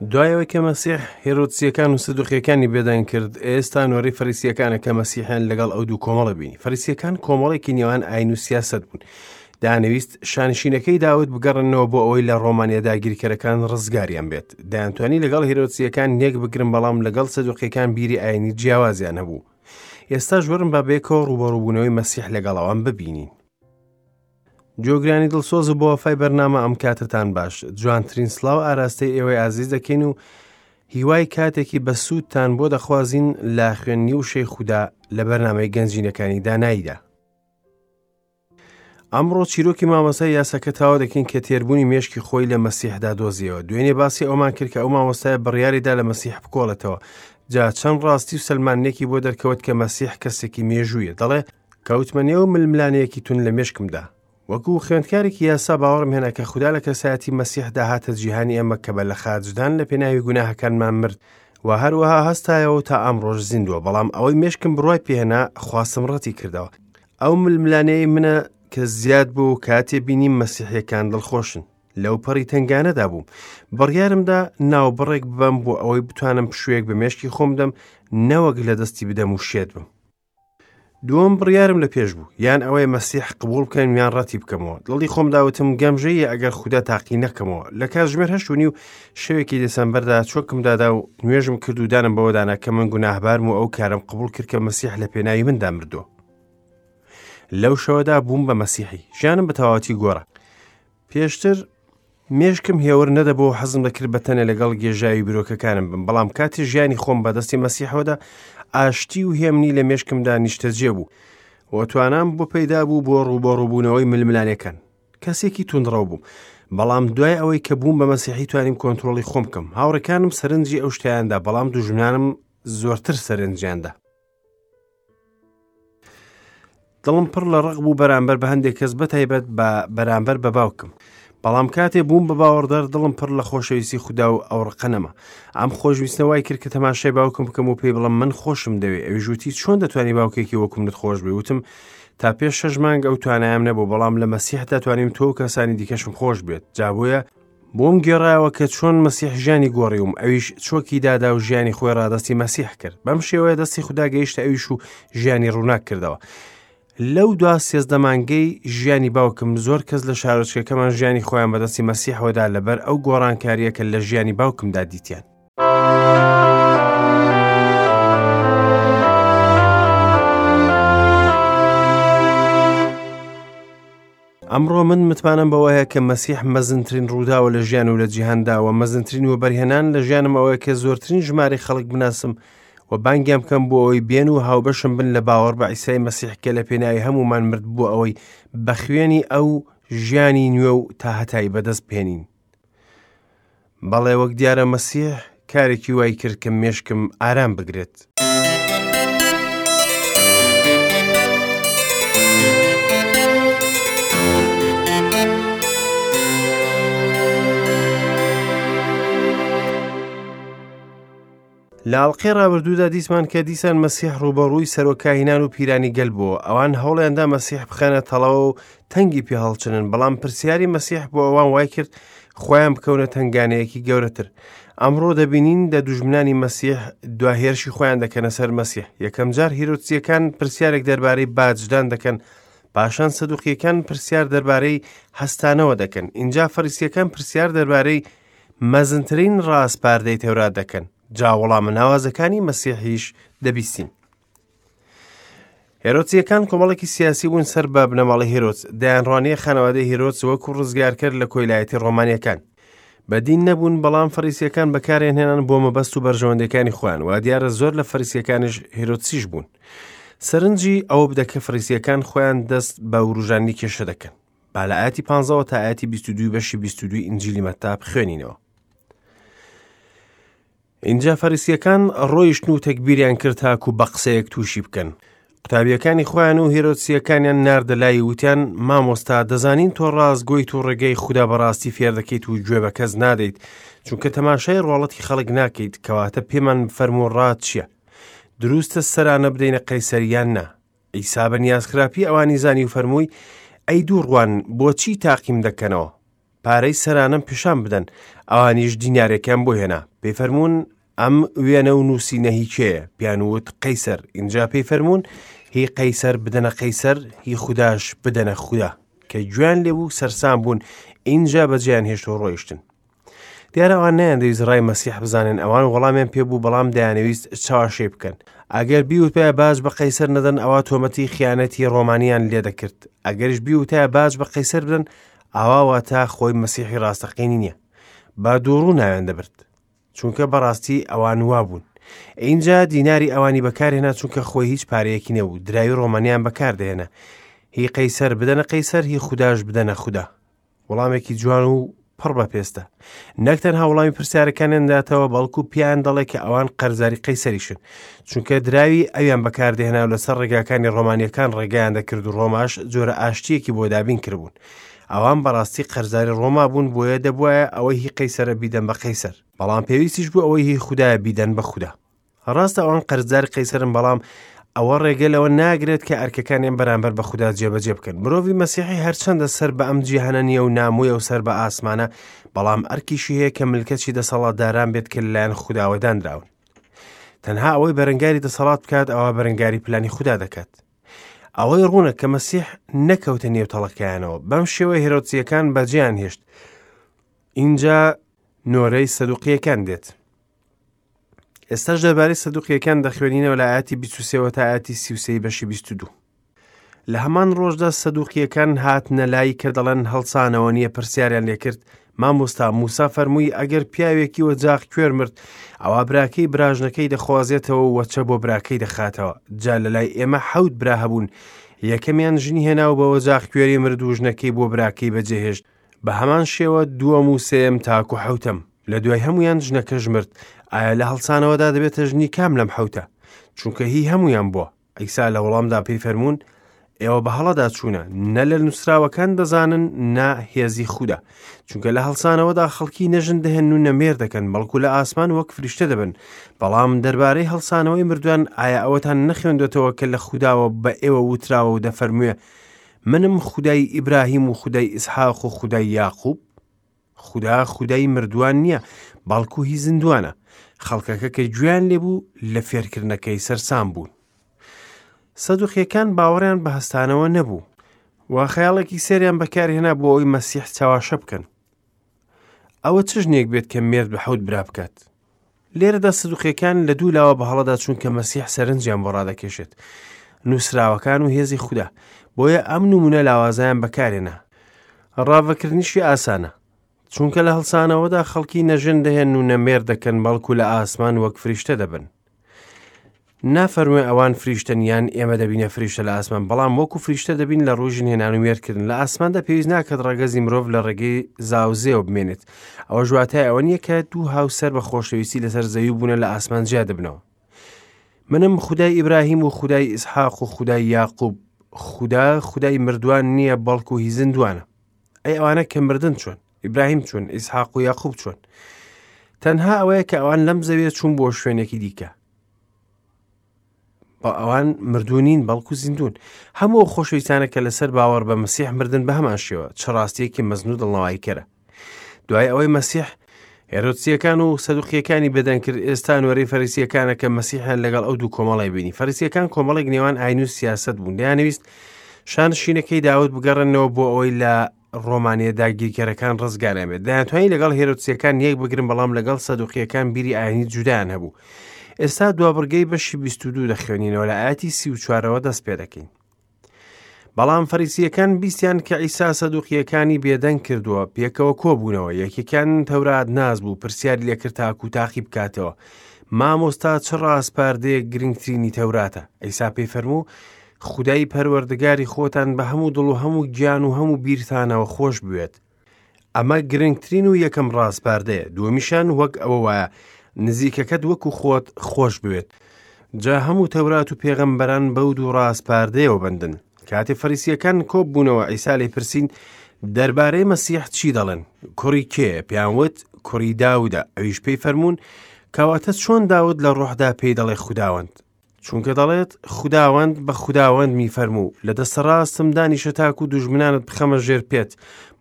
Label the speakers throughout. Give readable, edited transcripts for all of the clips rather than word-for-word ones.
Speaker 1: دوای ئەوەی کە مەسیح هێرۆدسییەکان و سەدوقییەکانی بێدەنگ کرد، ئێستا نۆرەی فەریسییەکانە کە مەسیحیان لەگەڵ ئەو دوو کۆمەڵە بینی. فەریسییەکان کۆمەڵێکی نێوان ئاین و سیاسەت بوون. دەیانەویست شانشینەکەی داود بگەڕێننەوە بۆ ئەوەی لە ڕۆمانیە داگیرکەرەکان ڕزگاریان بێت. دەیانتوانی لەگەڵ هێرۆدسییەکان یەک بگرن، بەڵام لەگەڵ سەدوقییەکان بیری ئاینی جیاوازیان هەبوو. ئێستاش وەرن با بەیەکەوە ڕووبەڕووبوونەوەی مەسیح لەگەڵ ئەوان ببینین. گوێگرانی دڵسۆز و بەوەفای بەرنامە ئەم کاتەتان باش جوانترین سڵاو ئاراستەی ئێوەی ئازیز دەکەین و هیوای کاتێکی بەسوودتان بۆ دەخوازین لە خوێندنی وشەی خودا لە بەرنامەی گەنجینەکانی داناییدا ئەمڕۆ چیرۆکی مامۆستای یاساکە تاوا دەکەین کە تێربوونی مێشکی خۆی لە مەسیحدا دۆزیەوە دوێنێ باسی ئەومان کرد کە ئەو مامۆستای بڕیاریدا لە مەسیح بکۆڵێتەوە جا چەند ڕاستی و سەلماندنێکی بۆ دەرکەوت کە مەسیح کەسێکی مێژوویە دەڵێ کەوتمە نێو ململانێیەکی توند لە مێشکمدا. وەکو خوێندکارێکی یاسا باوەڕم هێنا کە خودا لە کەسایەتی مەسیحدا هاتە جیهانی ئێمە کە بە لەخاچدان لە پێناوی گوناهەکانمان مرد و هەروەها هەستایەوە و تا ئەمڕۆش زیندووە، بەڵام ئەوەی مێشکم بڕوای پێهێنا خواستم ڕەتی کردەوە. ئەو ململانێی منە کە زیاد بوو و کاتێ بینیم مەسیحیەکان دڵخۆشن. لەو پەڕی تەنگانەدا بووم. بڕیارمدا ناوبڕێک ببەم بۆ ئەوەی بتوانم پشوویەک بە مێشکی خۆم بدەم نەوەک لە دەستی بدەم و شێت بم. دووەم بڕیارم لە پێش بوو یان ئەوەیە مەسیح قبول بکەم یان ڕەتی بکەمەوە دڵی خۆم داوتم گەمژەیە ئەگەر خودا تاقی نەکەمەوە لە کاتژمێر 8:30 شەوێکی دەسەمبەردا چۆکم دادا و نوێژم کرد و دانم بەوەدانا کە من گوناهبارم و ئەو کارم قبول کرد کە مەسیح لە پێناوی مندا مردووە لەو شەوەدا بووم بە مەسیحی ژیانم بە تەواوەتی گۆڕا پێشتر مێشکم هێور نەدەبوو و حەزم دەکرد بە تەنێ لەگەڵ گێژاوی بیرۆکەکانم بم، بەڵام کاتێ ژیانی خۆم بە دەستی مەسیحەوەدا، ئاشتی و هێمنی لە مێشکمدا نیشتەجێ بوو و توانام بۆ پەیدا بوو بۆ ڕووبەڕووبوونەوەی ململانێکان. کەسێکی توندڕەو بووم، بەڵام دوای ئەوەی کە بووم بە مەسیحی توانیم کۆنترۆڵی خۆم بکەم. هاوڕێکانم سەرنجی ئەو شتەیاندا، بەڵام دوژمنانم زۆرتر سەرنجیاندا. دڵم پڕ لە ڕق بوو بەرامبەر بە هەندێک کەس بەتایبەت بە بەرامبەر بە باوکم بەڵام کاتێ بووم بە باوەڕدار دڵم پڕ لە خۆشەویستی خودا و ئەو ڕقە نەما ئەم خۆشویستە وای کرد کە تەماشای باوکم بکەم و پێی بڵم من خۆشم دەوێ ئەویش وتی چۆن دەتوانی باوکێکی وەکو منت خۆش بێ وتم تا پێش شەش مانگ ئەو توانایەم نەبوو بەڵام لە مەسیحدا توانیم تۆ و کەسانی دیکەشم خۆش بێت جا بۆیە بۆم گێڕایەوە کە چۆن مەسیح ژیانی گۆڕیوم، ئەویش چۆکی دادا و ژیانی خۆی ڕادەستی مەسیح کرد. بەم شێوەیە دەستی خودا گەیشتە ئەویش و ژیانی ڕووناک کردەوە. لەو دوا 13 مانگەی ژیانی باوکم زۆر کەس لە شارۆچکەکەمان ژیانی خۆیان بەدەستی مەسیحەوەدا لەبەر ئەو گۆڕانکارییە کە لە ژیانی باوکمدا دیتیان. ئەمڕۆ من متمانەم بەوە هەیە کە مەسیح مەزنترین ڕووداوە لە ژیان و لە جیهاندا و مەزنترین وەبەرهێنان لە ژیانم ئەوەیە کە زۆرترین ژمارەی خەڵک بناسم و بانگیان بکەم بۆ ئەوەی بێن و هاوبەشم بن لە باوەڕ بە عیسای مەسیح کە لە پێناوی هەموومان مرد بۆ ئەوەی بە خوێنی ئەو ژیانی نوێ و تاهەتایی بەدەست بهێنین. بەڵێ وەک دیارە مەسیح کارێکی وای کرد کە مێشکم ئارام بگرێت. لە ئەڵقەی ڕابردوودا دیتمان کە دیسان مەسیح ڕووبەڕووی سەرۆک کاهینان و پیرانی گەل بووە. ئەوان هەوڵیاندا مەسیح بخەنە تەڵەوە و تەنگی پێ هەڵچنن، بەڵام پرسیاری مەسیح بۆ ئەوان وای کرد خۆیان بکەونە تەنگانەیەکی گەورەتر. ئەمڕۆ دەبینین دە دوژمنانی مەسیح دوا هێرشی خۆیان دەکەنە سەر مەسیح. یەکەم جار هیرۆدسییەکان پرسیارێک دەربارەی باجدان دەکەن، پاشان سەدوقییەکان پرسیار دەربارەی هەستانەوە دەکەن، ئینجا فەریسییەکان پرسیار دەربارەی مەزنترین ڕاسپاردەی تەورات دەکەن، جا وەڵامە ناوازەکانی مەسیحیش دەبیستین. هێرۆتسیەکان کۆمەڵێکی سیاسی بوون سەر بە بنەماڵەی هێرۆتس، دەیانڕوانیە خانەوادەی هێرۆتس وەکو ڕزگارکەر لە کۆیلایەتی ڕۆمانیەکان. بە دین نەبوون، بەڵام فەریسیەکان بەکاریان هێنان بۆ مەبەست و بەرژەوەندیەکانی خۆیان، وا دیارە زۆر لە فەریسیەکانیش هێرۆتسیش بوون. سەرنجی ئەوە بدە کە فەریسیەکان خۆیان دەست بە وروژاندنی کێشە دەکەن. با لە ئاەتی پانزەوە تا ئاەتی 22 بەشی 22 ئینجیلی مەتا بخوێنینەوە. ئینجا فەریسیەکان ڕۆیشتن و تەگبیریان کرد تاکو بە قسەیەک تووشی بکەن. قوتابیەکانی خۆیان و هێرۆدسیەکانیان ناردە لای وتیان مامۆستا دەزانین تۆ ڕاستگۆیت و ڕێگەی خودا بەڕاستی فێر دەکەیت و گوێ بە کەس نادەیت چونکە تەماشای ڕواڵەتی خەڵک ناکەیت کەواتە پێمان بفەرموو ڕات چییە دروستە سەرانە بدەینە قەیسەر یان نا عیسا بە نیازخراپی ئەوانی زانی و فەرمووی ئەی دووڕوان بۆچی تاقیم دەکەنەوە؟ پارەی سەرانەم پیشان بدەن. ئەوانیش دینارێکیان بۆ هێنا. پێی فەرموون، ئەم وێنە و نووسینە هی کێیە؟ پێیان وت، قەیسەر. ئینجا پێی فەرموون، هی قەیسەر بدەنە قەیسەر، هی خوداش بدەنە خودا. کە گوێیان لێ بوو سەرسام بوون، ئینجا بەجێیان هێشت و ڕۆیشتن. دیارە ئەوان نەیاندەویست ڕای مەسیح بزانن، ئەوان وەڵامیان پێ بوو، بەڵام دەیانەویست چاوەشەی بکەن. ئەگەر بیوتایە باج بە قەیسەر نەدەن، ئەوا تۆمەتی خیانەتی ڕۆمانیان لێ دەکرد. ئەگەریش بیوتایە باج بە قەیسەر بدەن، ئەوا واتە خۆی مەسیحی ڕاستەقینی نییە. بە دووڕوو ناویان دەبرد. چونکە بەڕاستی ئەوان وابوون. ئینجا دیناری ئەوانی بەکارهێنا چونکە خۆی هیچ پارەیەکی نەبوو، دراوی ڕۆمانیان بەکاردەهێنا. هی قەیسەر بدەنە قەیسەر، هی خوداش بدەنە خودا. وەڵامێکی جوان و پڕ بە پێستە. نەک تەنها وەڵامی پرسیارەکانیان داتەوە، بەڵکو پێیان دەڵێ کە ئەوان قەرزاری قەیسەریشن، چونکە دراوی ئەویان بەکاردەهێنا و لەسەر ڕێگاکانی ڕۆمانیەکان ڕێگایان دەکرد و ڕۆماش جۆرە ئاشتیەکی بۆ دابین کردبوون. ئەوان بەڕاستی قەرزاری ڕۆما بوون، بۆیە دەبوایە ئەوەی هی قەیسەرە بیدەن بە قەیسەر، بەڵام پێویستیش بوو ئەوەی هی خودایە بیدەن بە خودا. ڕاستە ئەوان قەرزداری قەیسەرن، بەڵام ئەوە ڕێگە لەوە ناگرێت کە ئەرکەکانیان بەرامبەر بە خودا جێبەجێ بکەن. مرۆڤی مەسیحی هەرچەندە سەر بە ئەم جیهانە نییە و نامۆیە و سەر بە ئاسمانە، بەڵام ئەرکیشی هەیە کە ملکەچی دەسەڵاتداران بێت کە لەلایەن خوداوە دانراون. تەنها ئەوەی بەرەنگاری دەسەڵات بکات ئەوا بەرەنگاری پلانی خودا دەکات. ئەوەی ڕوونە کە مەسیح نەکەوتە نێو تەڵەکەیانەوە. بەم شێوە هێرۆدسییەکان بەجێیان هێشت. ئینجا نۆرەی سەدوقییەکان دێت. ئێستاش دەربارەی سەدوقیەکان دەخوێنینەوە لە ئاەتی 23 تا ئاەتی 33 بەشی 22. لە هەمان ڕۆژدا سەدوقیەکان هاتنە لای کە دەڵێن هەڵسانەوە نییە پرسیاریان لێکرد مامۆستا موسا فەرمووی ئەگەر پیاوێکی وەجاخ کوێر مرد ئەوا براکەی براژنەکەی دەخوازێتەوە و وەچە بۆ براکەی دەخاتەوە جا لە لای ئێمە حەوت برا هەبوون یەکەمیان ژنی هێنا و بە وەجاخ کوێری مرد و ژنەکەی بۆ براکەی بەجێهێشت بە هەمان شێوە دووەم و سێیەم تاکو حەوتەم لە دوای هەمویان ژنەکەش مرد ئایا لە هەڵسانەوەدا دەبێتە ژنی کام لەم حەوتە چونکە هی هەمویان بووە عیسا لە وەڵامدا پێی فەرموون ئێوە بە هەڵەدا چوونە نە لە نووسراوەکان دەزانن نە هێزی خودا چونکە لە هەڵسانەوەدا خەڵکی نەژن دەهێن و نەمێر دەکەن بەڵکو لە ئاسمان وەک فریشتە دەبن بەڵام دەربارەی هەڵسانەوەی مردوان ئایا ئەوەتان نەخوێندێتەوە کە لە خوداوە بە ئێوە وتراوە و دەفەرموێ منم خودای ئیبراهیم و خودای ئیسحاق و خودای یاقوب؟ خودا خودای مردووان نییە، بەڵکو هی زیندووانە. خەڵکەکە کە گوێیان لێبوو لە فێرکردنەکەی سەرسام بوون. سەدوقیەکان باوەڕیان بە هەستانەوە نەبوو و خەیاڵێکی سێریان بەکارهێنا بۆ ئەوەی مەسیح چاواشە بکەن. ئەوە چ ژنێک بێت کە مێرد بە حەوت برا بکات؟ لێرەدا سدوقیەکان لە دوو لاوە بە هەڵەدا چوون کە مەسیح سەرنجیان بۆ ڕادەکێشێت، نووسراوەکان و هێزی خودا، بۆیە ئەم نمونە لاوازیان بەکارێنا. ڕاڤەکردنیشی ئاسانە، چونکە لە هەڵسانەوەدا خەڵکی نە ژن دەهێن و نە مێرد دەکەن، بەڵکو لە ئاسمان وەک فریشتە دەبن. نافەرموێ ئەوان فریشتەن یان ئێمە دەبینە فریشتە لە ئاسمان، بەڵام وەکو فریشتە دەبین لە ڕووی ژنهێنان و مێردکردن. لە ئاسماندا پێویست ناکات ڕەگەزی مرۆڤ لە ڕێگەی زاوزێوە بمێنێت. ئەوەش واتای ئەوە نییە کە دوو هاوسەر بە خۆشەویستی لەسەر زەوی بوونە لە ئاسمان جیا دەبنەوە. منم خودای ئیبراهیم و خودای ئیسحاق و خودای یاقوب. خودا خودای مردوان نییە بەڵکو هی زیندوانە. ئەی ئەوانە کە مردن چۆن؟ ئیبراهیم چۆن؟ ئیسحاق و یاقوب چۆن؟ تەنها ئەوەیە کە ئەوان لەم زەویە چوون بۆ شوێنێکی دیکە. بە ئەوان مردوو نین بەڵکو زیندوون. هەموو ئەو خۆشەویستانە کە لەسەر باوەڕ بە مەسیح مردن بە هەمان شێوە، چ ڕاستیەکی مەزن و دڵنەواییکەرە. دوای ئەوەی مەسیح هێرۆدسیەکان و سەدوقیەکانی بێدەنگ کرد، ئێستا نۆرەی فەریسیەکانە کە مەسیحیان لەگەڵ ئەو دوو کۆمەڵی بینی. فەریسیەکان کۆمەڵێک نێوان ئاین و سیاسەت بوون، دەیانەویست شانشینەکەی داود بگەڕێنەوە بۆ ئەوەی لە ڕۆمانیە داگیرکەرەکان ڕزگاریان بێت. دەیانتوانی لەگەڵ هێرۆدسیەکان یەک بگرن، بەڵام لەگەڵ سەدوقیەکان بیری ئاینی جودایان هەبوو. ئێستا دوابڕگەی بەشی 22 دەخوێنینەوە، لە ئاەتی 34ەوە دەست پێ دەکەین. بەڵام فەریسیەکان بیستیان کە عیسا سەدوقیەکانی بێدەنگ کردووە، پێکەوە کۆبوونەوە. یەکێکیان تەورات ناس بوو، پرسیاری لێکرد تاکو تاقی بکاتەوە، مامۆستا چ ڕاسپاردەیەک گرنگترینی تەوراتە؟ عیسا پێی فەرموو، خودای پەروەردگاری خۆتان بە هەموو دڵ و هەموو گیان و هەموو بیرتانەوە خۆش بوێت. ئەمە گرنگترین و یەکەم ڕاسپاردەیە. دووەمیشان وەک ئەوە وایە، نزیکەکەت وەکو خۆت خۆش بوێت. جا هەموو تەورات و پێغەمبەران بەو دوو ڕاسپاردەیەوە بەندن. کاتێ فەریسییەکان کۆببوونەوە، عیسا لێی پرسین، دەربارەی مەسیح چی دەڵێن؟ کوڕی کێیە؟ پێیان وت، کوڕی داودە. ئەویش پێی فەرموون، کەواتە چۆن داود لە ڕۆحدا پێی دەڵێ خوداوەند؟ چونکە دەڵێت، خوداوەند بە خوداوەندمی فەرموو، لە دەستە ڕاستم دانیشە تاکو دوژمنانت بخەمە ژێر پێت.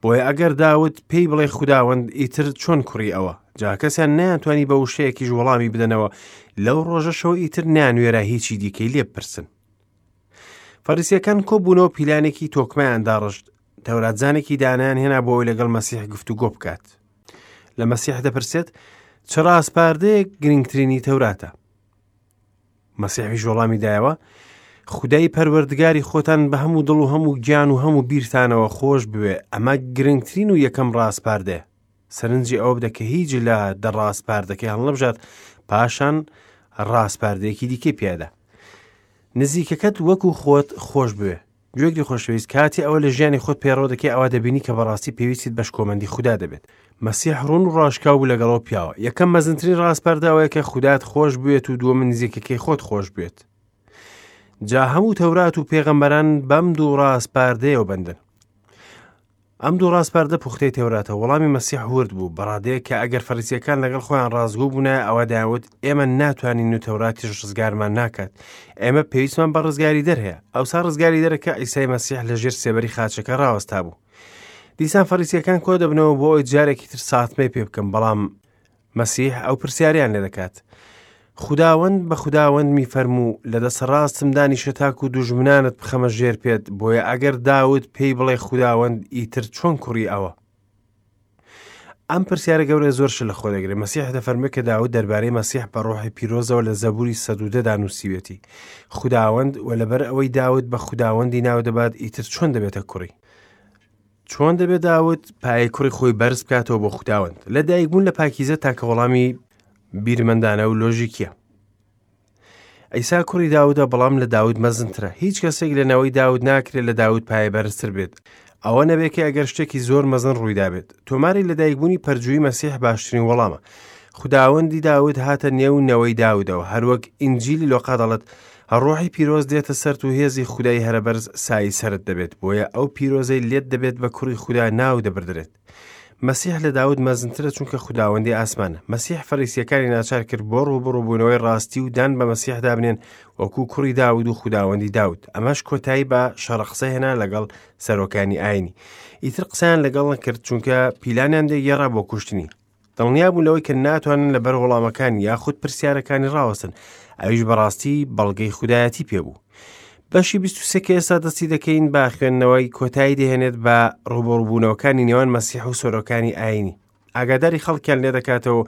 Speaker 1: بۆیە ئەگەر داود پێی بڵێ خوداوەند، ئیتر چۆن کوڕی ئەوە؟ جا کەسیان نەیانتوانی بە وشەیەکیش وەڵامی بدەنەوە، لەو ڕۆژەشەوە ئیتر نەیانوێرا هیچی دیکەی لێ بپرسن. فەریسیەکان کۆبوونەوە پیلانێکی تۆکمەیان داڕشت، تەوراتزانێکی دانایان هێنا بۆ ئەوەی لەگەڵ مەسیح گفتوگۆ بکات. لە مەسیح دەپرسێت، چ ڕاسپاردەیەک گرنگترینی تەوراتە؟ مەسیحیش وەڵامی دایەوە، خودای پەروەردگاری خۆتان بە هەموو دڵ و هەموو گیان و هەموو بیرتانەوە خۆش بوێ، ئەمە گرنگترین و یەکەم ڕاسپاردەیە. سەرنجی ئەوە بدە کە هیچ لە دە ڕاسپاردەکەی هەڵنەبژارد، پاشان ڕاسپاردەیەکی دیکەی پێدا. نزیکەکەت وەکو خۆت خۆش بوێ. گوێگری خۆشەویست کاتی ئەوە لە ژیانی خۆت پەیڕەو دەکەی ئەوا دەبینی کە بەڕاستی پێویستیت بە شکۆمەندی خودا دەبێت. مەسیح ڕوون و ڕاشکاو بوو لەگەڵ ئەو پیاوە. یەکەم مەزنترین ڕاسپاردە ئەوەیە کە خودات خۆش بوێت و دووەم نزیکەکەی خۆت خۆش بوێت. جا هەموو تەورات و پێغەمبەران بەم دوو ڕاسپاردەیەوە بەندن. ئەم دوو ڕاسپاردە پوختەی تەوراتە. وەڵامی مەسیح ورد بوو، بە ڕادەیەک کە ئەگەر فەریسییەکان لەگەڵ خۆیان ڕاستگۆ بوونایە ئەوا دەیانوت ئێمە ناتوانین و تەوراتیش ڕزگارمان ناکات. ئێمە پێویستمان بە ڕزگاریدەر هەیە. ئەوسا ڕزگاریدەرەکە عیسای مەسیح لە ژێر سێبەری خاچەکە ڕاوەستا بوو. دیسان فەریسییەکان کۆ دەبنەوە بۆ ئەوەی جارێکی تر ساتمەی پێ بکەن، بەڵام مەسیح ئەو پرسیارەیان لێ دەکات. خوداوەند بە خوداوەندمی فەرموو، لە دەستە ڕاستم دانیشە تاکو دوژمنانت بخەمە ژێر پێت، بۆیە ئەگەر داود پێی بڵێ خوداوەند ئیتر چۆن کوڕی ئەوە؟ ئەم پرسیارە گەورە زۆر شت لە خۆ دەگرێت. مەسیح دەفەرموێ کە داود دەربارەی مەسیح بە ڕۆحی پیرۆزەوە لە زەبوری 110 دا نووسیوێتی خوداوەند و لەبەر ئەوەی داود بە خوداوەندی ناو دەبات ئیتر چۆن دەبێتە کوڕی؟ چۆن دەبێت داود پایەی کوڕی خۆی بەرز بکاتەوە بۆ خوداوەند؟ لە دایکبوون لە پاکیزە تاکە وەڵامی بیرمەندانە و لۆژیکیە. عیسا کوڕی داودە بەڵام لە داود مەزنترە. هیچ کەسێک لە نەوەی داود ناکرێت لە داود پایە بەرزتر بێت. ئەوە نەبێت کە ئەگەر شتێکی زۆر مەزن ڕوویدابێت. تۆماری لەدایکبوونی پەرجووی مەسیح باشترین وەڵامە. خوداوەندی داود هاتە نێو نەوەی داودەوە، هەروەک ئینجیلی لۆقا دەڵێت، ڕۆحی پیرۆز دێتە سەرت و هێزی خودای هەرەبەرز سایەی سەرت دەبێت، بۆیە ئەو پیرۆزەی لێت دەبێت بە کوڕی خودا ناو دەبردرێت. مەسیح لە داود مەزنترە چونکە خوداوەندی ئاسمانە. مەسیح فەریسیەکانی ناچار کرد بۆ ڕووبەڕووبوونەوەی ڕاستی و دان بە مەسیحدا بنێن وەکو کوڕی داود و خوداوەندی داود. ئەمەش کۆتایی بە شەڕەقسە هێنا لەگەڵ سەرۆکانی ئاینی. ئیتر قسەیان لەگەڵ نەکرد چونکە پیلانیان دەگێڕا بۆ کوشتنی. دڵنیا بوون لەوەی کە ناتوانن لەبەر وەڵامەکانی یاخود پرسیارەکانی ڕاوەستن ئەویش بەڕاستی بەڵگەی خودایەتی پێبوو بەشی 23 کە ئێستا دەستی دەکەین بە خوێندنەوەی کۆتایی دەهێنێت بە ڕوبەڕوبوونەوەکانی نێوان مەسیح و سۆرۆکانی ئاینی ئاگاداری خەڵکیان لێ دەکاتەوە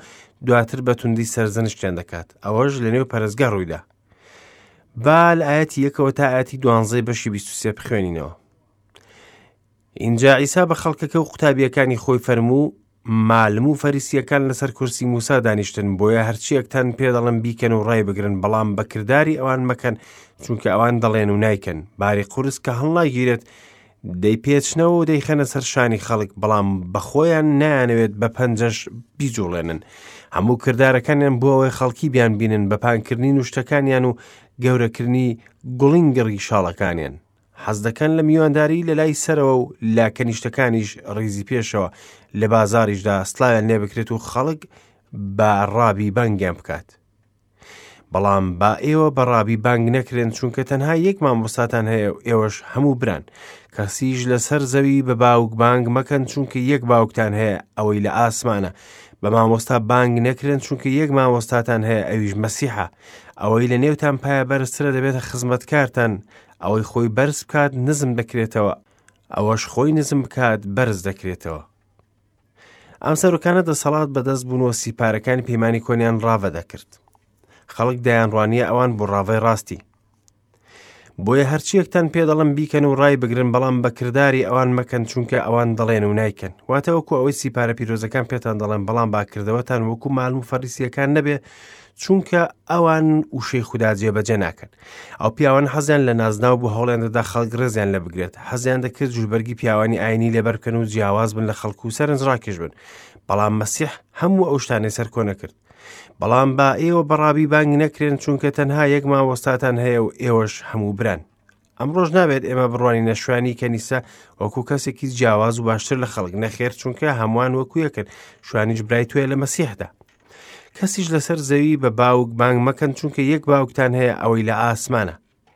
Speaker 1: دواتر بە توندی سەرزەنشتیان دەکات ئەوەش لە نێو پەرستگا ڕوویدا با لە ئاەتی یەکەوە تا ئاەتی دوانزەی بەشی 23 بخوێنینەوە ئینجا عیسا بە خەڵکەکە و قوتابییەکانی خۆی فەرموو، مالم و فەریسییەکان لەسەر کورسی موسا دانیشتن، بۆیە هەرچییەکتان پێ دەڵێم بیکەن و ڕایبگرن، بەڵام بە کرداری ئەوان مەکەن، چونکە ئەوان دەڵێن و نایکەن. باری قورس کە هەڵناگیرێت، دەیپێچنەوە و دەیخەنە سەر شانی خەڵک، بەڵام بە خۆیان نایانەوێت بە پەنجەش بیجوڵێنن. هەموو کردارەکانیان بۆ ئەوەی خەڵکی بیانبینن بە پانکردنی نوشتەکانیان و گەورەکردنی گوڵینگڕی شاڵەکانیان. حەز دەکەن لە میوانداری لە لای سەرەوە و لە کەنیشتەکانیش ڕیزی پێشەوە لە بازاریشدا سڵاویان لێ بکرێت و خەڵک بە ڕابی بانگیان بکات. بەڵام با ئێوە بە ڕابی بانگ نەکرێن چونکە تەنها یەک مامۆستاتان هەیە و ئێوەش هەموو بران. کەسیش لەسەر زەوی بە باوک بانگ مەکەن چونکە یەک باوکتان هەیە ئەوەی لە ئاسمانە. بە مامۆستا بانگ نەکرێن چونکە یەک مامۆستاتان هەیە ئەویش مەسیحە. ئەوەی لە نێوتان پایە بەرزترە دەبێتە خزمەتکارتان، ئەوەی خۆی بەرز بکات نزم دەکرێتەوە، ئەوەش خۆی نزم بکات بەرز دەکرێتەوە. ئەم سەرۆکانە دەسەڵات بەدەست بوون و سیپارەکانی پەیمانی کۆنیان ڕاڤە دەکرد. خەڵک دەیانڕوانیە ئەوان بۆ ڕاڤەی ڕاستی. بۆیە هەرچیەکتان پێ دەڵم بیکەن و ڕای بگرن بەڵام بە کرداری ئەوان مەکەن چونکە ئەوان دەڵێن و نایکەن واتە وەکو ئەوەی سیپارە پیرۆزەکان پێتان دەڵێن بەڵام باکردەوەتان وەکو مالم و فەریسیەکان نەبێ چونکە ئەوان وشەی خودا جێبەجێ ناکەن. ئەو پیاوان حەزیان لە نازناو بوو هەوڵیان دەدا خەڵک ڕێزیان لێ بگرێت حەزیان دەکرد جلوبەرگی پیاوانی ئاینی لەبەر بکەن و جیاواز بن لە خەڵک و سەرنجڕاکێش بن بەڵام مەسیح هەموو ئەو شتانەی سەرکۆنە کرد بەڵام با ئێوە بەڕابی بانگ نەکرێن چونکە تەنها یەک مامۆستاتان هەیە و ئێوەش هەموو بران ئەمڕۆش نابێت ئێمە بڕوانینە شوانی کەنیسە وەکو کەسێکی جیاواز و باشتر لە خەڵک نەخێر چونکە هەمووان وەکو یەکن شوانیش برای تۆیە لە مەسیحدا. کەسیش لەسەر زەوی بە باوک بانگ مەکەن، چونکە یەک باوکتان هەیە ئەوەی لە ئاسمانە.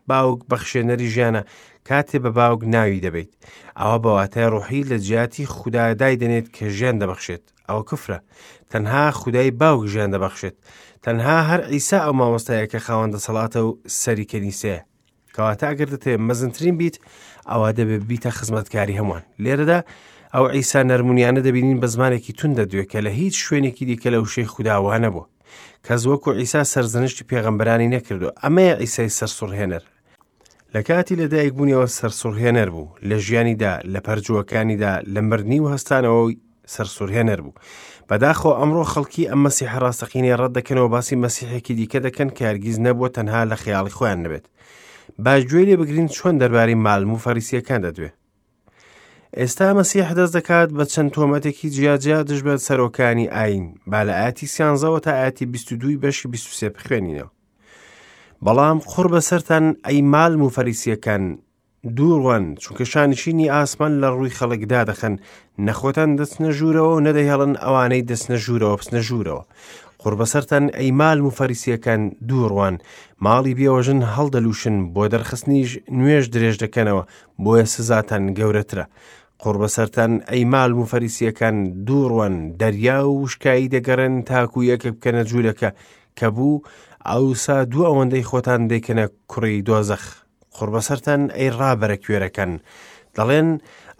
Speaker 1: باوک بەخشێنەری ژیانە، کاتێ بە باوک ناوی دەبەیت ئەوە بە واتای ڕۆحی لە جیاتی خودا دایدەنێت کە ژیان دەبەخشێت. ئەوە کفرە. تەنها خودای باوک ژیان دەبەخشێت. تەنها هەر عیسا ئەو مامۆستایە کە خاوەن دەسەڵاتە و سەری کەنیسەیە. کەواتە ئەگەر دەتەوێت مەزنترین بیت ئەوە دەبێت بیتە خزمەتکاری هەمووان. لێرەدا ئەو عیسا نەرمونیانە دەبینین بە زمانێکی توند دەدوێت کە لە هیچ شوێنێکی دیکە لە وشەی خودا وا نەبووە. کەس وەکو عیسا سەرزەنشتی پێغەمبەرانی نەکردووە. ئەمەیە عیسای سەرسوڕهێنەر. لە کاتی لەدایکبوونیەوە سەرسوڕهێنەر بوو، لە ژیانیدا، لە پەرجووەکانیدا، لە مردنی و هەستانەوەی سەرسوڕهێنەر بوو. بەداخەوە ئەمڕۆ خەڵکی ئەم مەسیحە ڕاستەقینەیە ڕەت دەکەنەوە، باسی مەسیحێکی دیکە دەکەن کە هەرگیز نەبووە تەنها لە خەیاڵی خۆیان نەبێت. با گوێ لێ بگرین چۆن دەربارەی مالم و فەریسییەکان دەدوێ. ئێستا مەسیح دەست دەکات بە چەند تۆمەتێکی جیاجیا دژ بە سەرۆکانی ئایین. با لە ئاەتی سیانزەوە تا ئاەتی 22 بەشی 23 بخوێنینەوە. بەڵام قوڕ بەسەرتان ئەی مالم و فەریسییەکان، دووڕوان، چونکە شانشینی ئاسمان لە ڕووی خەڵک دادەخەن، نە خۆتان دەچنە ژوورەوە و نەدەهێڵن ئەوانەی دەچنە ژوورەوە بچنە ژوورەوە. قوڕ بەسەرتان ئەی مالم و فەریسییەکان، دووڕوان، ماڵی بێوەژن هەڵدەلووشن، بۆ دەرخستنیش نوێژ درێژ دەکەنەوە، بۆیە سزاتان گەورەترە. قوڕ بەسەرتان ئەی مالم و فەریسییەکان، دووڕوان، دەریا و وشکایی دەگەڕێن تاکو یەکێک بکەنە جوولەکە، کە بوو، ئەوسا دوو ئەوەندەی خۆتان دەیکەنە کوڕی دۆزەخ. قوڕ بەسەرتان ئەی ڕابەرە کوێرەکان، دەڵێن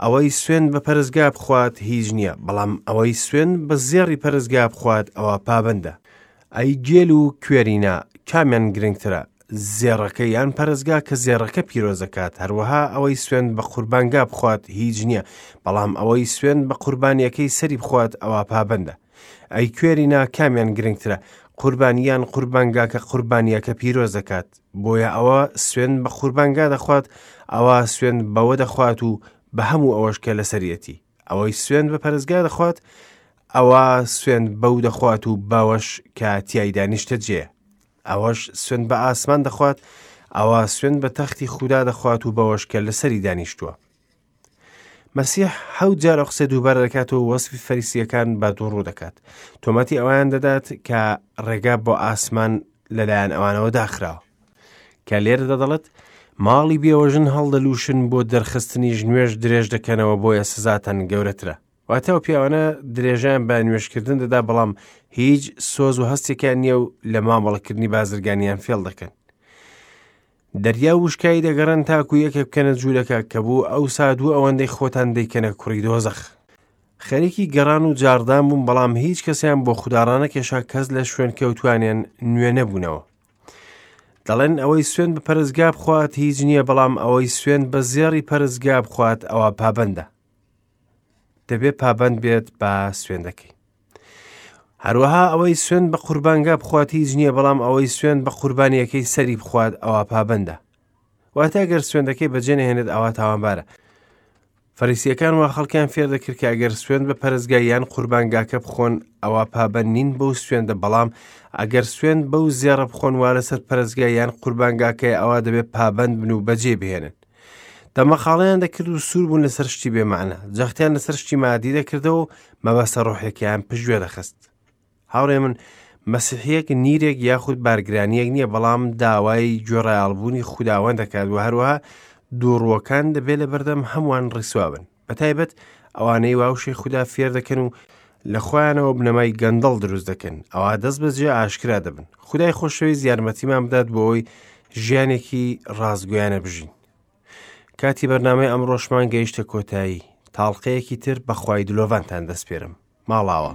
Speaker 1: ئەوەی سوێند بە پەرستگا بخوات هیچ نییە، بەڵام ئەوەی سوێند بە زێڕی پەرستگا بخوات ئەوە پابەندە. ئەی گێل و کوێرینە، کامیان گرنگترە، زێڕەکە یان پەرستگا کە زێڕەکە پیرۆز دەکات؟ هەروەها ئەوەی سوێند بە قوربانگا بخوات هیچ نییە، بەڵام ئەوەی سوێند بە قوربانیەکەی سەری بخوات ئەوە پابەندە. ئەی کوێرینا، کامیان گرنگترە، قوربانی یان قوربانگا کە قوربانیەکە پیرۆز دەکات؟ بۆیە ئەوە سوێند بە قوربانگا دەخوات، ئەوە سوێند بەوە دەخوات و بە هەموو ئەوەش کە لەسەریەتی. ئەوەی سوێند بە پەرستگا دەخوات، ئەوە سوێند بەو دەخوات و بەوەش کە تیایدا نیشتەجێیە. ئەوەش سوێند بە ئاسمان دەخوات، ئەوە سوێند بە تەختی خودا دەخوات و بەوەش کە لەسەری دانیشتووە. مەسیح حەوت جار ئەو قسەی دووبارە دەکاتەوە و وەسفی فەریسییەکان بە دووڕوو دەکات. تۆمەتی ئەویان دەدات کە ڕێگا بۆ ئاسمان لەلایەن ئەوانەوە داخراوە. کە لێرەدا دەڵێت ماڵی بێوەژن هەڵدەلووشن بۆ دەرخستنیش نوێژ درێژ دەکەنەوە بۆیە سزاتان گەورەترە. واتە ئەو پیاوانە درێژەیان بە نوێژکردن دەدا بەڵام هیچ سۆز و هەستێکیان نییە و لە مامەڵەکردنی بازرگانیان فێڵ دەکەن. دەریا و وشکایی دەگەڕێن تاکو یەکێک بکەنە جوولەکە کە بوو ئەوسا دوو ئەوەندەی خۆتان دەیکەنە کوڕی دۆزەخ. خەریکی گەڕان و جاڕدان بوون بەڵام هیچ کەسیان بۆ خودا ڕانەکێشا کەس لە شوێن کەوتوانیان نوێ نەبوونەوە. دەڵێن ئەوەی سوێند بە پەرستگا بخوات هیچ نییە بەڵام ئەوەی سوێند بە زێڕی پەرستگا بخوات ئەوە پابەندە. دەبێ پابەند بێت بە سوێندەکەی. هەروەها ئەوەی سوێند بە قوربانگا بخوات هیچ نییە بەڵام ئەوەی سوێند بە قوربانیەکەی سەری بخوات ئەوە پابەندە. واتە ئەگەر سوێندەکەی بەجێ نەهێنێت ئەوە تاوانبارە. فەریسیەکان وا خەڵکیان فێر دەکرد کە ئەگەر سوێند بە پەرستگا یان قوربانگاکە بخۆن ئەوە پابەند نین بەو سوێندە بەڵام ئەگەر سوێند بەو زێڕە بخۆن وا لەسەر پەرستگا یان قوربانگاکەی ئەوە دەبێت پابەند بن و بەجێ بهێنن. دەمەقاڵەیان دەکرد و سوور بوون لەسەر شتی بێمانە جەختیان لەسەر شتی مادی دەکردەوە و مەبەستە ڕۆحیەکەیان پشتگوێ دەخست. هاوڕێ من مەسیحیەک نیرێک یاخود بارگرانیەک نییە بەڵام داوای گوێڕایەڵبوونی خوداوەند دەکات و هەروەها دووڕووەکان دەبێت لە بەردەم هەمووان ڕیسوا بن بە تایبەت ئەوانەی واوشەی خودا فێر دەکەن و لە خۆیانەوە بنەمای گەندەڵ دروست دەکەن ئەوا دەست بەجێ ئاشکرا دەبن خودای خۆشەویست یارمەتیمان بدات بۆ ئەوەی ژیانێکی ڕاستگۆیانە بژین کاتی بەرنامەی ئەمڕۆشمان گەیشتە کۆتایی تاڵقەیەکی تر بەخوای دلۆڤانتان دەسپێرم ماڵاوە.